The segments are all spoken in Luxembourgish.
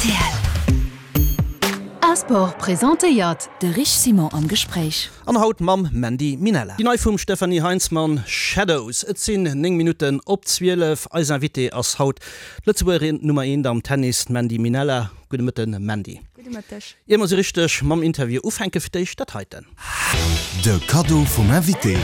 Rtl. Asport presentéiert de Rich Simon am Gespréich. An haut mam Mandy Minella. Déi nei vum Stefanie Heinzmann, Shadows. Et sinn 9 Minutten op 12. Eis Invitée ass haut d'Lëtzebuergerin Nummer eent am Tennis, d'Mandy Minella. Gudde Mëtten, Mandy. Gudde Mëtteg. Ier mer sou richteg mam Interview ufänken, fir d'éischt dat heiten. De Kaddo vum Invité.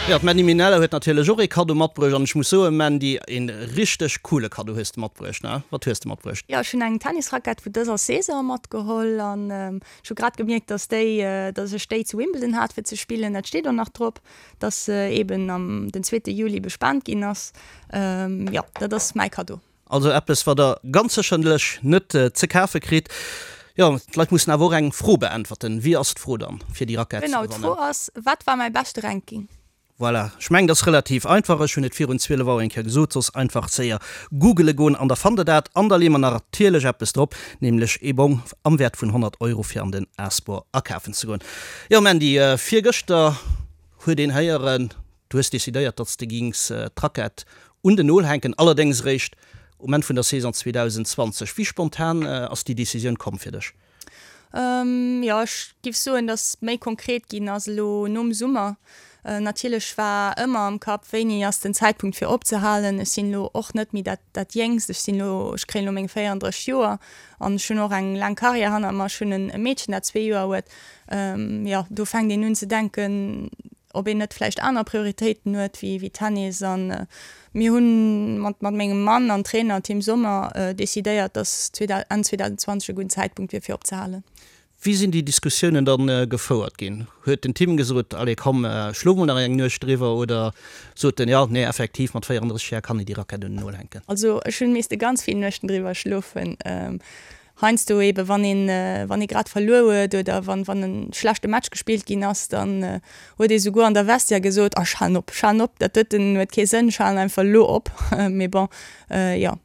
Jo, d'Mandy Minella huet natierlech och ee Kaddo matbruecht an ech muss soen, Mandy, een richteg coole Kaddo hues de matbruecht, ne? Wat hues de matbruecht? Jo, ech hunn eng Tennisrackett vu dëser Saison matgeholl an ech hu grad gemierkt, dass déi, dass ech déi zu Wimbledon hat fir ze spillen. Dat steet och nach drop, dass se eben am den zweete Juli bespent ginn ass. Jo, dat ass mäi Kaddo. Also eppes wat der ganz sécherlech net ze kafe kritt. Jo, d'Leit mussen awer och eng Fro beäntwerten. Wéi ass d'Fro dann fir déi Rackett ze Genau, gewannen? d'Fro ass, Wat war mäi beschte Ranking? Voilà, ech mengen dat ass relativ einfach. Ech hunn et virun 12 Auer eng Kéier gesot, soss einfach séier googele goen an da fannt der dat. An da leeë mer natierlech eppes drop, nämlech ee Bong am Wäert vun 100 Euro fir an den A-Sport akafen ze goen. Jo Mandy, virgëschter huet een héieren, Du hues decidéiert, datt s de gings d'Rackett un den Nol hänken, allerdéngs eréischt um Enn vun der Saison 2020. Wéi spontan ass déi Decisioun komm fir dech? Jo, ech giff soen, datt méi konkret ginn ass elo nom Summer. Natierlech war ëmmer am Kapp, wéini ass den Zäitpunkt fir opzehalen. Ech sinn elo och net méi dat dat Jéngst, ech sinn elo, ech kréien elo meng 34 Joer an ech hunn och eng laang Karriär hanner mer. Ech hunn e Meedchen, dat zwee Joer huet. Jo, do fänkt een un ze denken, ob een net vläicht aner Prioritéiten huet wéi Tennis. An mir hu mat mat mengem Mann an Trainer Tim Sommer decidéiert, datt Enn 2020 e gudden Zäitpunkt wier fir opzehalen. Wéi sinn déi Diskussiounen dann gefouert ginn? Huet den Tim gesot, allez komm, schlof mol nach eng Nuecht driwwer oder sot en, jo, nee, effektiv, mat 34 Jar kann een déi Rackett un den Nol hänken? Also ech hunn misste ganz vill Nuechten driwwer schlofen. Heiansdo eben, wann een, wann ee grad verluer huet oder wann, wann e schlechte Match gespillt ginn ass, dann huet ee souguer an der Vestiaire gesot, Ah, ech halen op, ech halen op, dat doten huet kee Sënn, ech halen einfach elo op. Mee bon, jo,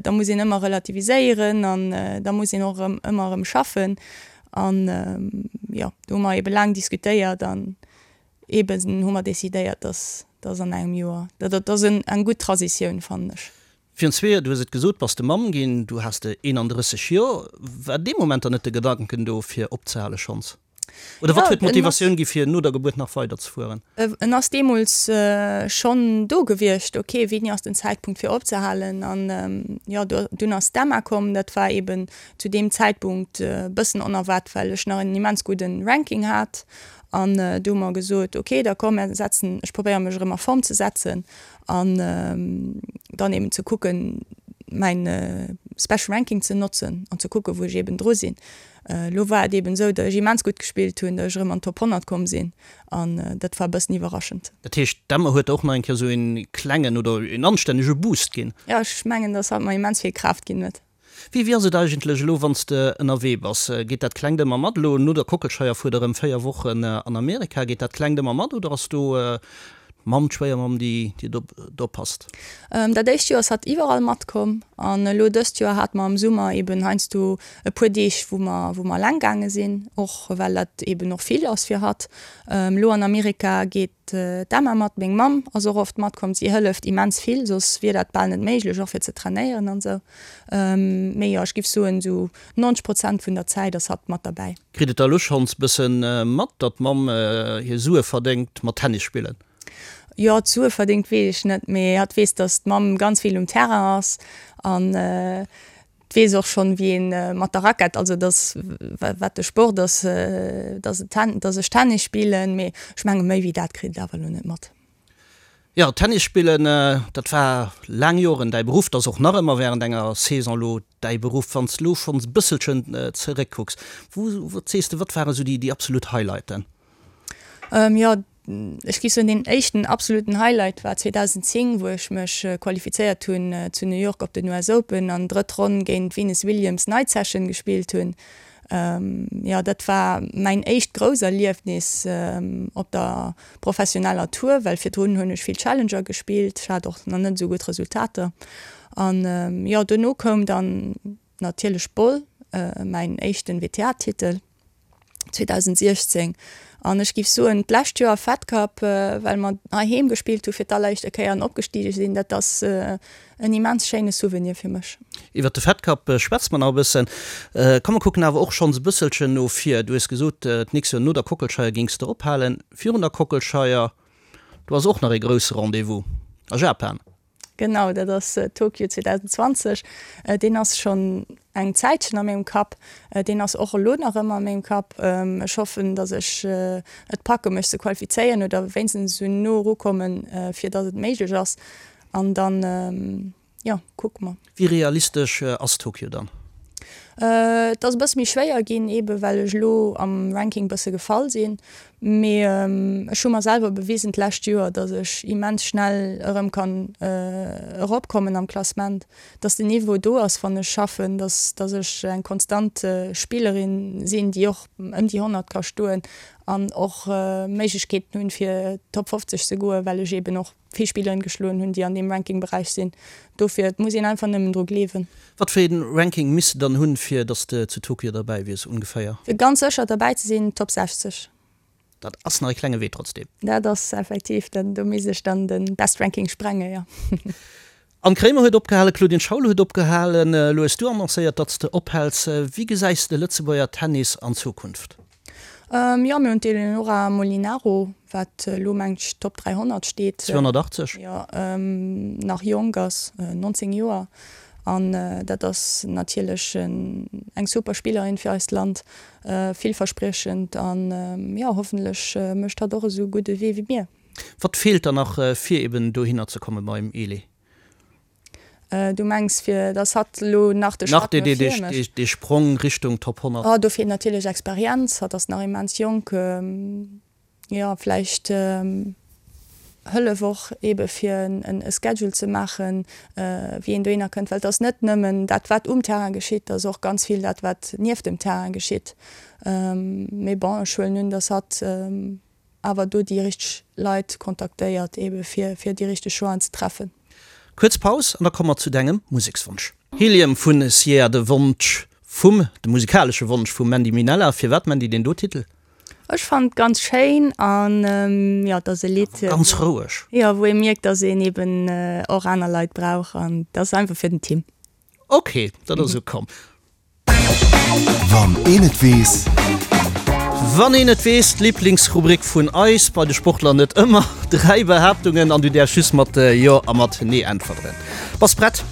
da muss een ëmmer relativiséieren an da muss een och erëm, ëmmer erëm schaffen. An jo, do hu mer ebe laang diskutéiert an eben hu mer decidéiert, dass, dass an engem Joer, dat ass eng gutt Transitioun, fannen ech. Virun zwee Joer, du hues et gesot, bass de Mamm ginn, du has de 31 Joer. War dee Moment dann net de Gedanken do fir opzehale schonns? Oder wat huet d'Motivatioun gi fir no der Gebuert nach weider ze fueren? En ass deemools schonn do gewiescht, ok, wéini ass den Zäitpunkt fir opzehalen? An jo, dunn ass d'Emma komm, dat war eben zu deem Zäitpunkt e bëssen onerwaart, well ech nach en immens gudden Ranking hat. An du hu mer gesot, ok, da komm, mer setzen, ech probéiere mech erëm a Form ze setzen. An dann eben ze kucken, mäin Special Ranking ze notzen an ze kucken, wou ech eben dru sinn. Elo war et eben esou, datt ech immens gutt gespillt hunn, datt ech erëm an d'Top 100 komm sinn an dat war e bëssen iwwerraschend. Dat heescht, d'Emma huet der och nach eng Kéier esou een klengen oder een anstännege Boost ginn? Jo, ech mengen, datt hatt mer immens vill Kraaft ginn huet. Wéi wéi ass et eigentlech elo, wann s de ënnerwee bass? Geet dat Klengt ëmmer mat? Elo no der Kockelscheier fuert der erëm 4 Wochen an Amerika. Geet dat Klengt ëmmer mat oder ass do d'Mamm, d'Schwéiermamm, déi déi do oppasst? Dat éischt Joer ass hatt iwwerall matkomm an elo dëst Joer hate mer am Summer eben heiansdo e puer Deeg, wou mer wou mer eleng gaange sinn, och well dat eben och vill ass fir hatt. Elo an Amerika geet D'Emma mat, meng Mamm ass och oft matkomm, si hëlleft immens vill, soss wier dat bal net méiglech, och fir ze trainéieren an esou. Mee jo, ech giff soen, esou 90 Prozent vun der Zäit ass hatt mat derbäi. Kritt et da elo schonns bëssen mat, datt d'Mamm hir Sue verdéngt mat Tennis spillen? Jo, d'Sue verdéngt weess ech net, mee hatt weess, datt d'Mamm ganz vill um Terrain ass an Weess och schonn, wéi een mat der Rackett, also dass, wat de Sport ass, dass et Ten, dass ech Tennis spillen, mee ech menge méi wéi dat kritt et awer elo net mat. Jo, Tennis spillen, dat war laang Joren däi Beruff, dat ass och nach ëmmer während enger Saison elo däi Beruff. Wann s de elo schonns e bësselchen zeréckkucks, wou, wat sees de, wat waren esou déi, déi absolut Highlighten? Jo, Ech géif soen, deen éischten absoluten Highlight war 2010, wou ech mech qualifizéiert hunn zu New York op den US Open an drëtt Ronn géint d'Venus Williams Night Session gespillt hunn. Jo, dat war mäin éischt grouss Erliefnis op der professioneller Tour, well virdrun hunn ech vill Challenger gespillt. Ech hat och nach net esou gutt Resultater. An jo, dono koum dann natierlech Bonn, mäin éischten WTA-Titel. 2016. An ech géif soen, d'lescht Joer Fed Cup, well mer heiheem gespillt hu fir d'alleréischte Kéier an opgestige sinn, dat ass en immens schéine Souvenir fir mech. Iwwert de Fed Cup schwätze mer nach e bëssen. Komm mer kucken awer och schonns e bësselchen no vir. Du hues gesot, d'nächst Joer no der Kockelscheier géings de ophalen. Virun der Kockelscheier, do ass och nach ee grousse Rendez-vous a Japan. Genau, dat ass Tokio 2020. Deen ass schonn eng Zäitchen a mengem Kapp. Deen ass och elo nach ëmmer a mengem Kapp. Ech hoffen, datt ech et packe mech ze qualifizéieren oder wéinstens esou no erukommen, fir datt et méiglech ass. An dann, jo, kucke mer. Wéi realistesch ass Tokio dann? Et ass e bësse méi schwéier ginn, eebe well ech elo am Ranking bësse gefall sinn. Mee ech hu mer selwer bewisen d'lescht Joer, datt ech immens schnell erëm kann eropkommen am Klassement, datt den Niveau do ass, wann ech schaffen, datt datt ech eng konstant Spillerin sinn, déi och ëm déi 100 ka stoen an och Méiglechkeeten hunn, fir Top 50 ze goen, well ech eeben och vill Spilleren geschloen hunn, déi an deem Ranking-Beräich sinn. Dofir, et muss een einfach nëmmen dru gleewen. Wat fir een Ranking misst de dann hunn, fir dass de zu Tokio derbäi wiers, ongeféier? Fir ganz sécher derbäi ze sinn, Top 60. Dat ass nach e klenge Wee trotzdem. Dat ass effektiv, do misst ech dann de Best Ranking sprenge, jo. Anne Kremer huet opgehalen, Claudine Schaul huet opgehalen. Elo hues du annoncéiert, datt s de ophäls. Wéi gesäis de Lëtzebuerger Tennis an Zukunft? Jo, mir hunn d'Eleonora Molinaro, wat elo mengt ech Top 300 steet. 280? Jo, nach jonk ass, 19 Joer. An dat ass natierlech eng super Spillerin fir eist Land, villverspriechend an jo, hoffentlech mécht hatt och esou gutt e Wee wéi mir. Wat feelt dann nach fir eben dohinner ze komme beim Eli? Du mengs fir datt hatt elo nach de Schratt no vir mécht? Dee Sprong Richtung Top 100? Oh, do feelt natierlech Experienz. Hatt ass nach immens jonk. Jo, vläicht Hëllef och ebe fir e Schedule ze maachen, wéi een dohinner kënnt. Well et ass net nëmmen dat wat um Terrain geschitt, et ass och ganz vill dat wat nieft dem Terrain geschitt. Mee bon, ech huelen un, datt hatt awer do déi richteg Leit kontaktéiert ebe fir fir déi richteg Choixen ze treffen. Kuerz Paus an da komme mer zu dengem Musekswonsch. Helium vun Sierra, de Wonsch vum, de musikalesche Wonsch vum Mandy Minella. Firwat Mandy deen do Titel? Ech fannen et ganz schéin an jo et ass e Lidd. Ganz roueg. Jo, wou ee mierkt, dass een eben och aner Leit brauch an et ass einfach fir den Tim. Ok, dat ass ukomm. Wann een et weess. Wann een et weess, d'Liblingsrubrik vun eis, bei de Sportler net ëmmer. Dräi Behaaptungen an du däerfs just mat Jo a mat Nee äntweren. Bass prett?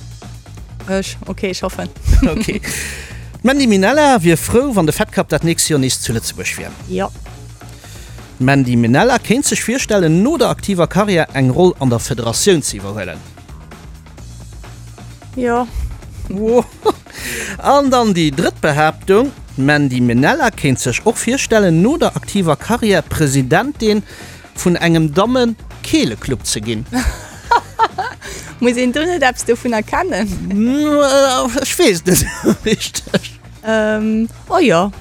Ech? Ok, ech hoffen. Ok. D'Mandy Minella wier frou, wann de Fed Cup dat nächst Joer nees zu Lëtzebuerg wier. Jo. D'Mandy Minella kéint sech virstellen, no der aktiver Karriär eng Roll an der Federatioun ze iwwerhuelen. Jo. An dann déi drëtt Behaaptung, D'Mandy Minella kéint sech och virstellen, no der aktiver Karriär Presidentin vun engem Damme-Keeleclub ze ginn. Muss een do net eppes dovunner kennen? Ech weess et net esou richteg. Oh jo.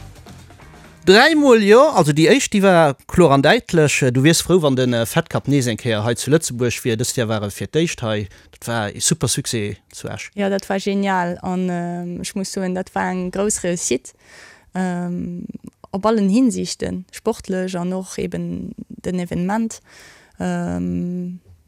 Dräimol jo. Also déi éischt, déi war kloer an däitlech. Du wiers frou, wann de Fed Cup nees eng Kéier hei zu Lëtzebuerg wier. Dëst Joer war e fir d'éischt hei. Dat war ee super Succès zu Esch. Jo, dat war genial an ech muss soen, dat war eng grouss Réussite op allen Hinsichten, sportlech an och eben den Evenement.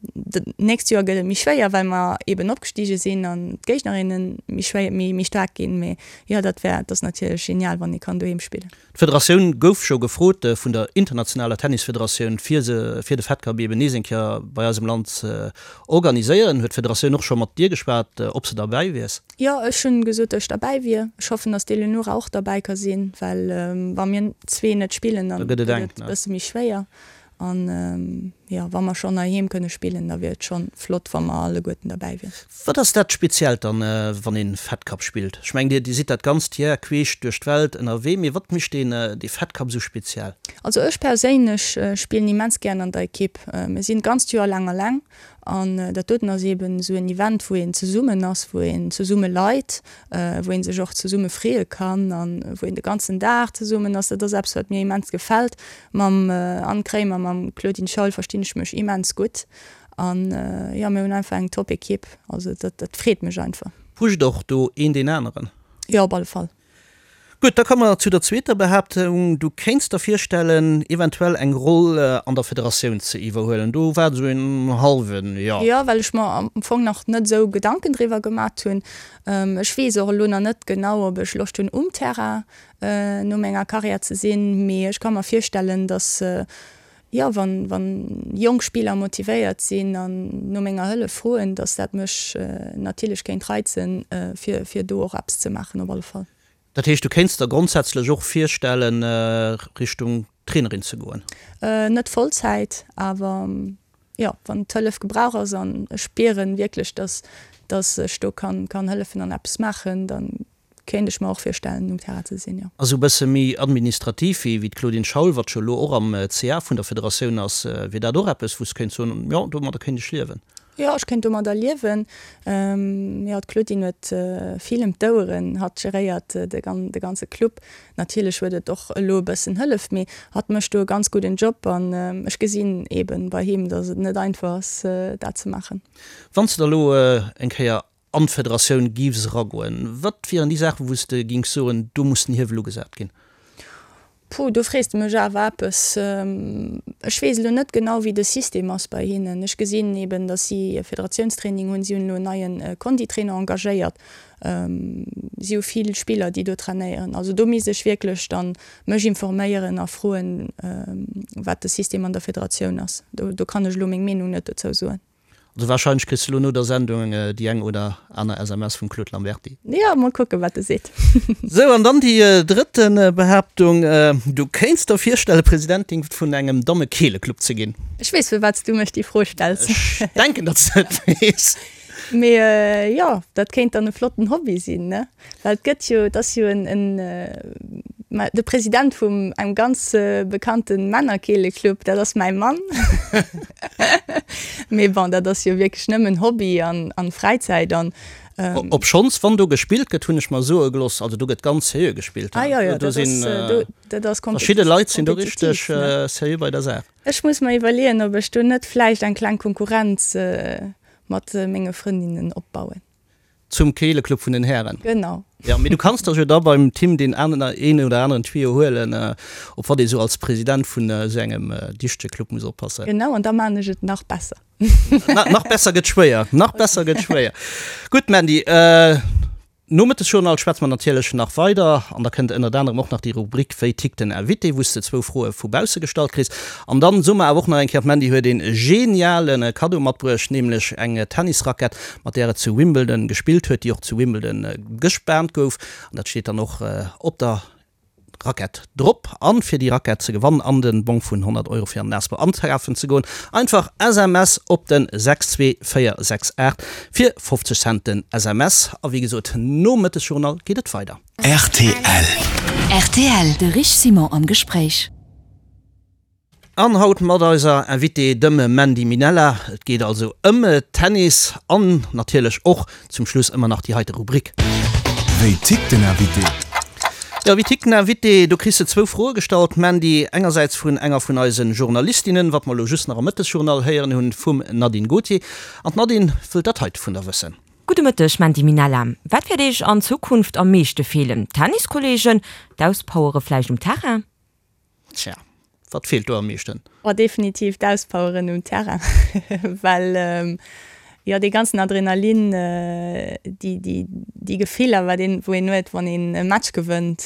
D'nächst Joer gëtt et méi schwéier, well mer eben opgestige sinn an d'Géignerinne méi schwéier, méi, méi staark ginn. Mee jo, dat wär, dat ass natierlech genial, wann ee kann doheem spillen. D'Federatioun gouf scho gefrot vun der internationaler Tennisfederatioun, fir se, fir de Fed Cup eben nees eng Kéier bei eis am Land ze organiséieren. Huet d'Federatioun och scho mat dir geschwat, ob s de derbäi wiers? Jo, ech hunn gesot, datt ech derbäi wier. Ech hoffen, datt d'Eleonora och derbäi ka sinn, well wa mir zwee net spillen, dann gëtt et e bësse méi schwéier. An jo, wa mer schonn heiheem kënne spillen, da wier et schonn flott, wa mer alleguerten derbäi wieren. Wat ass dat Speziellt dann, wann een Fed Cup spillt? Ech mengen, dir sidd dat ganzt Jar queesch duerch d'Welt ënnerwee, mee wat mécht deen dee Fed Cup esou speziell? Also ech perséinlech spillen immens gären an der Ekipp. Mir sinn d'ganzt Joer laang alleng an dat doten ass eben esou en Event, wou een zesummen ass, wou een zesumme leit, wou een sech och zesumme freeë kann an wou een de ganzen Dag zesummen ass. Dat ass eppes, wat mir immens gefält. Mam Anne Kremer, mam Claudine Schaul verstinn ech mech immens gutt an jo, mir hunn einfach eng top Ekipp, also dat dat freet mech einfach. Pusht och do een deen aneren? Jo, op alle Fall. Gutt, da komme mer zu der zweeter Behaaptung, Du kéints der virstellen, eventuell eng Roll an der Federatioun ze iwwerhuelen. Do war et esou en hallwen Jo. Jo, well ech mer am Fong nach net esou Gedanken driwwer gemat hunn. Ech weess och elo nach net genau, ob ech Loscht hunn, um Terrain no menger Karriär ze sinn, mee ech ka mer virstellen, dass, jo, wann, wann jonk Spiller motivéiert sinn an no menger Hëllef froen, dass dat mech natierlech kéint reizen, fir, fir do och eppes ze maachen op alle Fall. Dat heescht, du kéints der grondsätzlech och virstellen, Richtung Trainerin ze goen? Net Vollzäit, awer jo, wann d'Hëllef gebrauch ass an ech spieren wierklech, dass, dass ech do kann, kann hëllefen an eppes maachen, dann Kéint ech mer och virstellen um Terrain ze sinn, jo. Also e bësse méi administrativ wéi d'Claudine Schaul, wat jo elo och am CA vun der Federatioun ass. Wier dat och eppes, wou s kéints soen, jo, domadder kéint ech liewen? Jo, ech kéint domadder liewen. Jo, d'Claudine huet vill ëm d'Oueren. Hatt geréiert de ganze Club. Natierlech huet et och elo e bëssen Hëllef, mee hatt mécht do e ganz gudden Job an ech gesinn eeben bei him, datt et net einfach ass, dat ze maachen. Wann s de da elo eng Kéier an d'Federatioun giffs eragoen, wat wieren déi Saachen, wou s de gings soen, do muss den Hiewel ugesat ginn? Puh, do frees de mech awer eppes. Ech weess elo net genau, wéi de System ass bei hinnen. Ech gesinn eben, datt si e Federatiounstraining hunn. Si hunn elo en neie Konditrainer engagéiert. Si hu vill Spiller, déi do trainéieren. Also do misst ech wierklech dann mech informéieren a froen, wat de System an der Federatioun ass. Do kann ech elo meng Meenung net dozou soen. Also wahrscheinlech kriss de lo no der Sendung déi eng oder aner SMS vum Claude Lamberty. Jo, mol kucken, wat e seet. Sou, an dann déi drëtte Behaaptung, Du kéints der virstellen, Presidentin vun engem Dammekeeleclub ze ginn. Ech weess, firwat s du mech déi Fro stells. Ech denken, datt s de et weess. Mee jo, dat kéint dann e flotten Hobby sinn, ne? Well et gëtt jo, et ass jo en, en, ma de President vum engem ganz bekannte Männerkeeleclub, dat ass mäi Mann. Mee bon, dat ass jo wierklech nëmmen Hobby an, an Fräizäit an. Obschonns, wann do gespillt gëtt, hunn ech mer soe gelooss, also do gëtt ganz seriö gespillt. Ah jo, jo, dat ass, do, dat ass Verschidde Leit sinn do richteg seriö bei der Saach. Ech muss mer iwwerleeën, ob ech do net vläicht eng kleng Konkurrenz mat menge Frëndinnen opbauen. Zum Keeleclub vun den Hären. Genau. Jo, mee du kanns der jo da beim Tim deen een oder aneren Tuyau huelen, op wat ee sou als President vun esou engem dichtege Club muss oppassen. Genau, an da maan ech et nach besser. Nach besser gëtt schwéier, nach besser gëtt schwéier. Gutt, Mandy, Nom Mëttesjournal schwätze mer natierlech nach weider an da kënnt ënnert anerem och nach déi Rubrik Wéi tickt den Invité, wou s de zwou Froe vu bausse gestallt kriss. An dann soe mer awer och nach eng Kéier, d'Mandy huet een geniale Kaddo matbruecht, nämlech eng Tennisrackett, mat där et zu Wimbledon gespillt huet, déi och zu Wimbledon gespaant gouf. An dat steet dann och op der Rackett drop. An fir déi Rackett ze gewannen an den Bong vun 100 Euro fir an den Asper ankafen ze goen, einfach SMS op den 62468 fir 50 Cent den SMS. A wéi gesot, nom Mëttesjournal geet et weider. Rtl. Rtl, De Rich Simon am Gespréich. An haut mat eiser Invitée, dem Mandy Minella. Et geet also ëm Tennis an natierlech och zum Schluss ëmmer nach déi heite Rubrik. Wéi tickt den Invité? Jo, wéi tickt den Invité? Do kriss de zwou Froe gestallt, Mandy. Engersäits vun enger vun eise Journalistinnen, wat mer elo just nach am Mëttesjournal héieren hunn, vum Nadine Gautier. An d'Nadine wëllt dat heite vun der wëssen. Gudde Mëtteg Mandy Minella. Wat wäert Iech an Zukunft am meeschte feelen? D'Tenniskolleegen? D'Auspowere vläicht um Terrain? Tja, wat feelt do am meeschten? Oh, definitiv d'Auspoweren um Terrain, well jo dee ganzen Adrenalin, déi, déi, déi Gefiller, wat een, wou een huet, wann een e Match gewënnt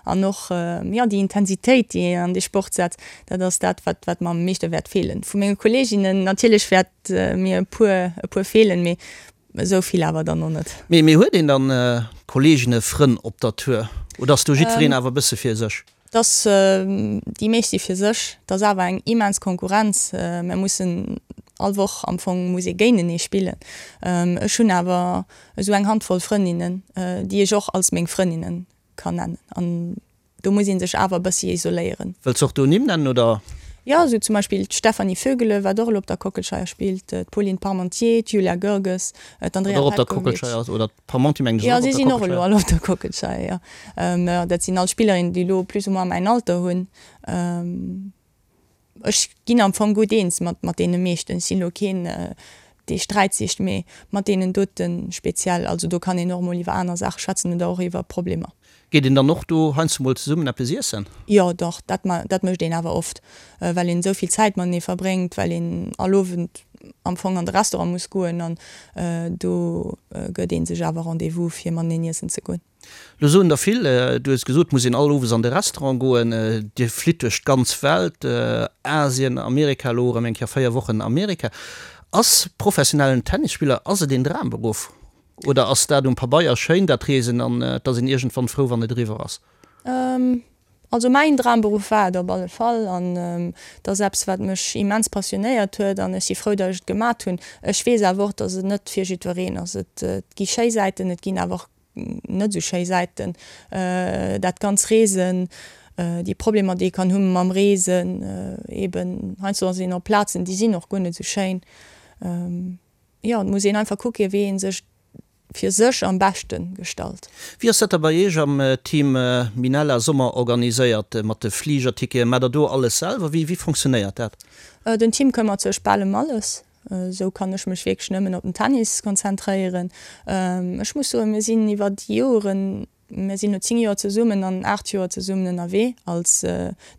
an och jo déi Intensitéit, déi een an dee Sport setzt, dat ass dat, wat, wat mer am meeschte wäert feelen. Vu menge Kolleeginnen natierlech wäert mir e puer, e puer feelen, mee Esou vill awer dann och net. Mee mee huet een dann Kolleegen, Frënn op der Tour oder ass do jiddwereen awer e bësse fir sech? Dass déi meescht si fir sech. Et ass awer eng immens Konkurrenz. Mir mussen all Woch am Fong muss ee géintenee spillen. Ech hunn awer esou eng Handvoll Frëndinnen, déi ech och als meng Frëndinnen kann nennen. An Do muss ee sech awer e bëssi isoléieren. Wëlls och do Nimm nennen, oder? Jo, esou zum Beispill d'Stéphanie Vögele, wat och elo op der Kockelscheier spillt, d'Pauline Parmentier, d'Julia Görges, d'Andrea Wat och op der Petkovic. Kockelscheier ass, oder d'Parmentier mengen ech ass Jo, och si op der sinn och elo Kockelscheier. all op der Kockelscheier, jo. Dat sinn all Spillerinnen, déi elo plus ou moins mäin Alter hunn. Ech ginn am Fong gutt eens mat mat deene meeschten. Ech sinn elo keen. dee Sträit sicht, mee mat deenen dote speziell. Also do kann een och emol iwwer aner Saache schwätzen oder och iwwer Problemer. Geet een dann och do heiansdo mol zesummen eppes iessen? Jo, dach, dat dat mécht een awer oft, well een esou vill Zäit matenee verbréngt, well een all Owend am Fong an de Restaurant muss goen an do gëtt ee sech awer Rendez-vous fir mateneen iessen ze goen. Lo soen der vill, du hues gesot, et muss een all Owes an de Restaurant goen, Dir flitt duerch d'ganz Welt, Asien, Amerika, elo erëm eng Kéier 4 Wochen Amerika. Ass professionellen Tennisspiller, ass et een Dramberuff? Oder ass dat um Pabeier schéin, dat Reesen, an et ass een iergendwann frou, wann et eriwwer ass? Also mäin Dramberuff war et op alle Fall an et ass eppes, wat mech immens passionéiert huet an ech si frou, datt ech et gemat hunn. Ech weess awer och, datt et net fir jiddwereen ass. Et gi schéi Säiten, et ginn awer och net esou schéi Säiten. Dat ganz Reesen, déi Problemer, déi ee kann hu mam Reesen, eben heiansdo ass een op Plazen, déi sinn och guer net esou schéin. Jo, et muss een einfach kucken, wéi ee sech fir sech am beschte gestalt. Wéi ass dat da bei Iech am Team Minella Sommer organiséiert mat de Fligerticketen? Maacht der do alles selwer? Wéi fonctionnéiert dat? Den Team këmmert sech bal ëm alles. Esou kann ech mech wierklech nëmmen op den Tennis konzentréieren. Ech muss soen, mir sinn iwwer déi Joren Mir sinn elo 10 Joer zesummen an 8 Joer zesummen ënnerwee als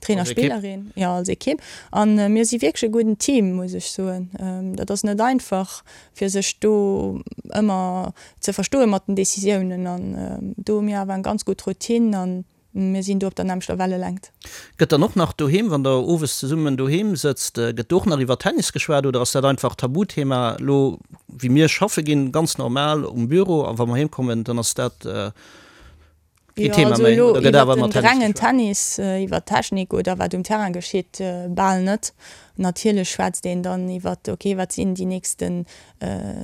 Trainer, Spillerin, jo als Ekipp. An mir si wierklech e gudden Team, muss ech soen. Dat ass net einfach fir sech do ëmmer ze verstoe mat den Decisiounen. An do hu mir awer eng ganz gutt Routine an mir sinn do op der nämmlechter Wellelängt. Gëtt dann och nach doheem, wann der owes zesummen doheem sëtzt, gëtt do och nach iwwer Tennis geschwat oder ass dat einfach Tabuthema elo wéi mir schaffe ginn, ganz normal um Büro a wa mer heem kommen, dann ass dat keen Thema méi oder gëtt awer ëmmer Tennis geschwat? Also elo iwwer den rengen Tennis, iwwer d'Technik oder wat um Terrain geschitt, bal net. Natierlech schwätzt een dann iwwer, ok, wat sinn déi nächsten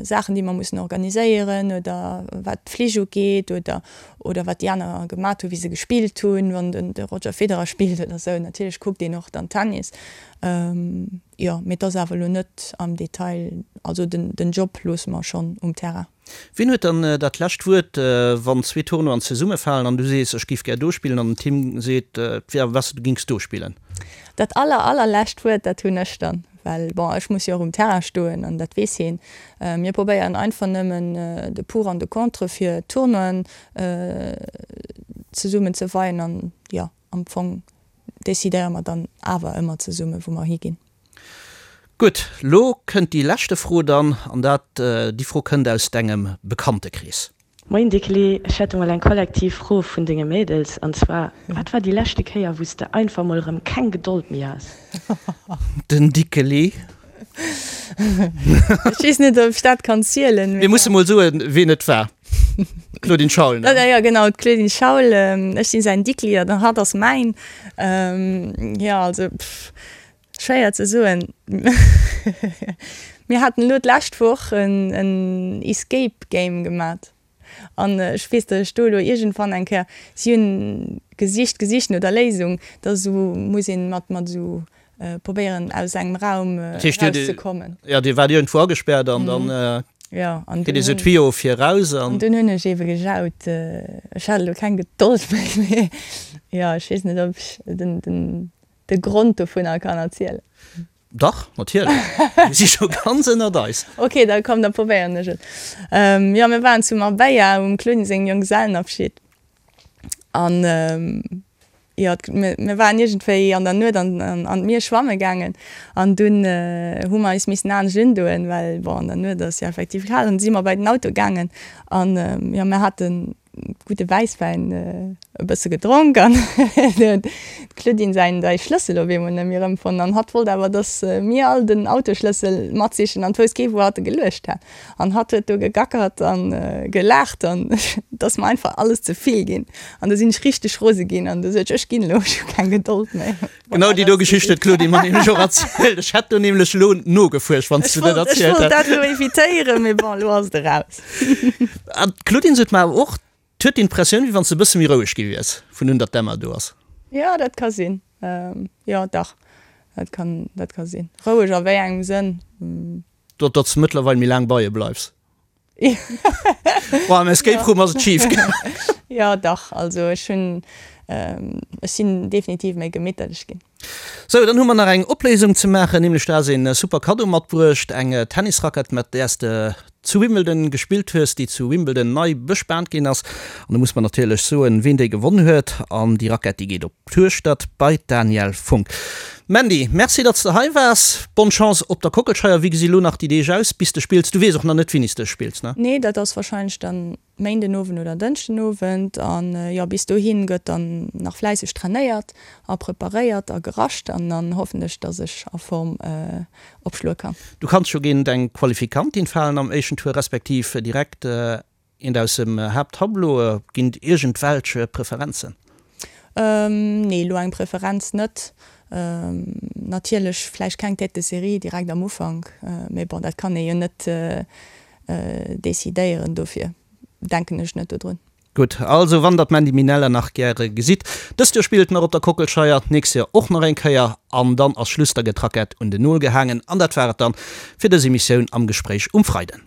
Saachen, déi mer mussen organiséieren oder wat d'Flich ugeet oder oder wat déi aner gemat hunn, wéi se gespillt hunn, wann den de Roger Federer spillt oder sou. Natierlech kuckt een och dann Tennis, jo, mee et ass awer elo net am Detail, also den den Job loosse mer schonn um Terrain. Wien huet dann dat lescht Wuert, wann zwee Tournoien zesummefalen an du sees, ech géif gär do spillen an den Tim seet, et wier awer besser, du géings do spillen? Dat aller, allerlescht Wuert, dat hunn ech dann, well bon, ech muss jo och um Terrain stoen an dat weess hien. Mir probéieren einfach nëmmen de Pour an de Contre fir d'Tournoien zesummen ze weien an jo, am Fong decidéiere mer dann awer ëmmer zesummen, wou mer higinn. Gutt, lo kënnt déi leschte Fro dann, an dat, déi Fro kënnt aus dengem Bekanntekrees. Moien Dickeli, ech hätt emol eng kollektiv Fro vun denge Mädels, an zwar, wat war déi leschte Kéier wous de einfach mol erëm keng Gedold méi has? Den Dickeli. Ech weess net ob ech dat kann zielen. Mir musse mol soen ween et war. D'Claudine Schaul, ne? Jo genau, d'Claudine Schaul. Ech sinn säin Dickeli an hatt ass mäin. Jo also pff. Schwéier ze soen. Mir haten elo d'lescht Woch en Escape Game gemat an ech weess, datt ech do elo iergendwann eng Kéier, si hunn gesicht, gesicht no der Léisung, da sou muss een mat mat esou probéieren aus engem Raum erauszekommen. Jo, Dir waart iergendwou agespäert an dann kritt ee sou Tuyau fir eraus an. An dunn hunn ech eebe gejaut, ech hat elo keng Gedold méi, mee jo, ech weess net, ob ech den den de Grond dovunner kann erzielen. Dach, natierlech. Mir si scho ganz ënnert eis. Ok, da komm, da probéieren ech et. Jo, mir waren zu Marbella um Claudine sengem Jonggesellenabschied an jo, mir waren iergendwéi an der Nuet an an d'Mier schwamme gaangen an dunn hu mer eis missen anescht undoen, well bon, an der Nuet ass jo effektiv kal an du si mer bei den Auto gaangen an jo, mir haten gudde Wäisswäin e bësse gedronk an huet d'Claudine säin säi Schlëssel op eemol net méi erëmfonnt an hatt wollt awer dass mir all den Autoschlëssel matsichen an d'wousst kee wou hatt e geluecht hat an hatt huet do gegackert an gelaacht an et ass mer einfach alles ze vill ginn an du sinn ech richteg rose ginn an du sot ech ech ginn elo ech hu keng Gedold méi. Genau déi do Geschicht huet d'Claudine mer nämlech och erzielt. Ech hätt do nämlech elo nogefuercht, wann s du dat erzielt hätt. Ech wollt dat elo evitéieren, mee bon, elo ass et eraus. An d'Claudine sot mer awer och, d'huet d'Impressioun, wéi wann s de e bësse méi roueg gi wiers, vun un datt d'Emma do ass. Jo, dat ka sinn. Jo, dach, dat kann, dat ka sinn. Roueg a wéi engem Sënn? Datt s de mëttlerweil méi laang bei e bleifs. Boah, am Escape Room ass et schif gaangen. Jo, dach, also ech hunn, ech sinn definitiv méi gemitterlech ginn. Sou, dann hu mer nach eng Opléisung ze maachen, nämlech du has een super Kaddo matbruecht, eng Tennisrackett mat däers de zu Wimbledon gespillt hues, déi zu Wimbledon nei bespaant ginn ass. An do muss mer natierlech soen, ween déi gewonn huet. An déi Rackett, déi geet op d'Hueschtert bei d'Danièle Funck. Mandy, merci datt s de hei waars. Bonne Chance op der Kockelscheier. Wéi gesi lo nach déi Deeg aus, bis de spills? Du weess och nach net, wéini s de spills, ne? Nee, dat ass warscheinlech dann Méinden Owend oder Dënschden Owend an jo bis dohin gëtt dann nach fläisseg trainéiert a preparéiert a gerascht an dann hoffen ech dass ech a Form opschloe kann. Du kanns jo géint eng Qualifikantin falen am éischten Tour, respektiv direkt eent aus dem Haapttableau. Ginn et iergendwelch Preferenzen? Nee, elo eng Preferenz net. Natierlech vläicht keng Tête de série direkt am Ufank, mee bon dat kann ee jo net decidéieren, dofir denken ech net dodrun. Gutt, also wann der d'Mandy Minella nach gäre gesitt, dëst Joer spillt nach op der Kockelscheier, d'nächst Joer och nach eng Kéier an dann ass Schluss, da gëtt d'Rackett un den Nol gehaangen an dat war et dann fir dës Emissioun am Gespréich um Freiden.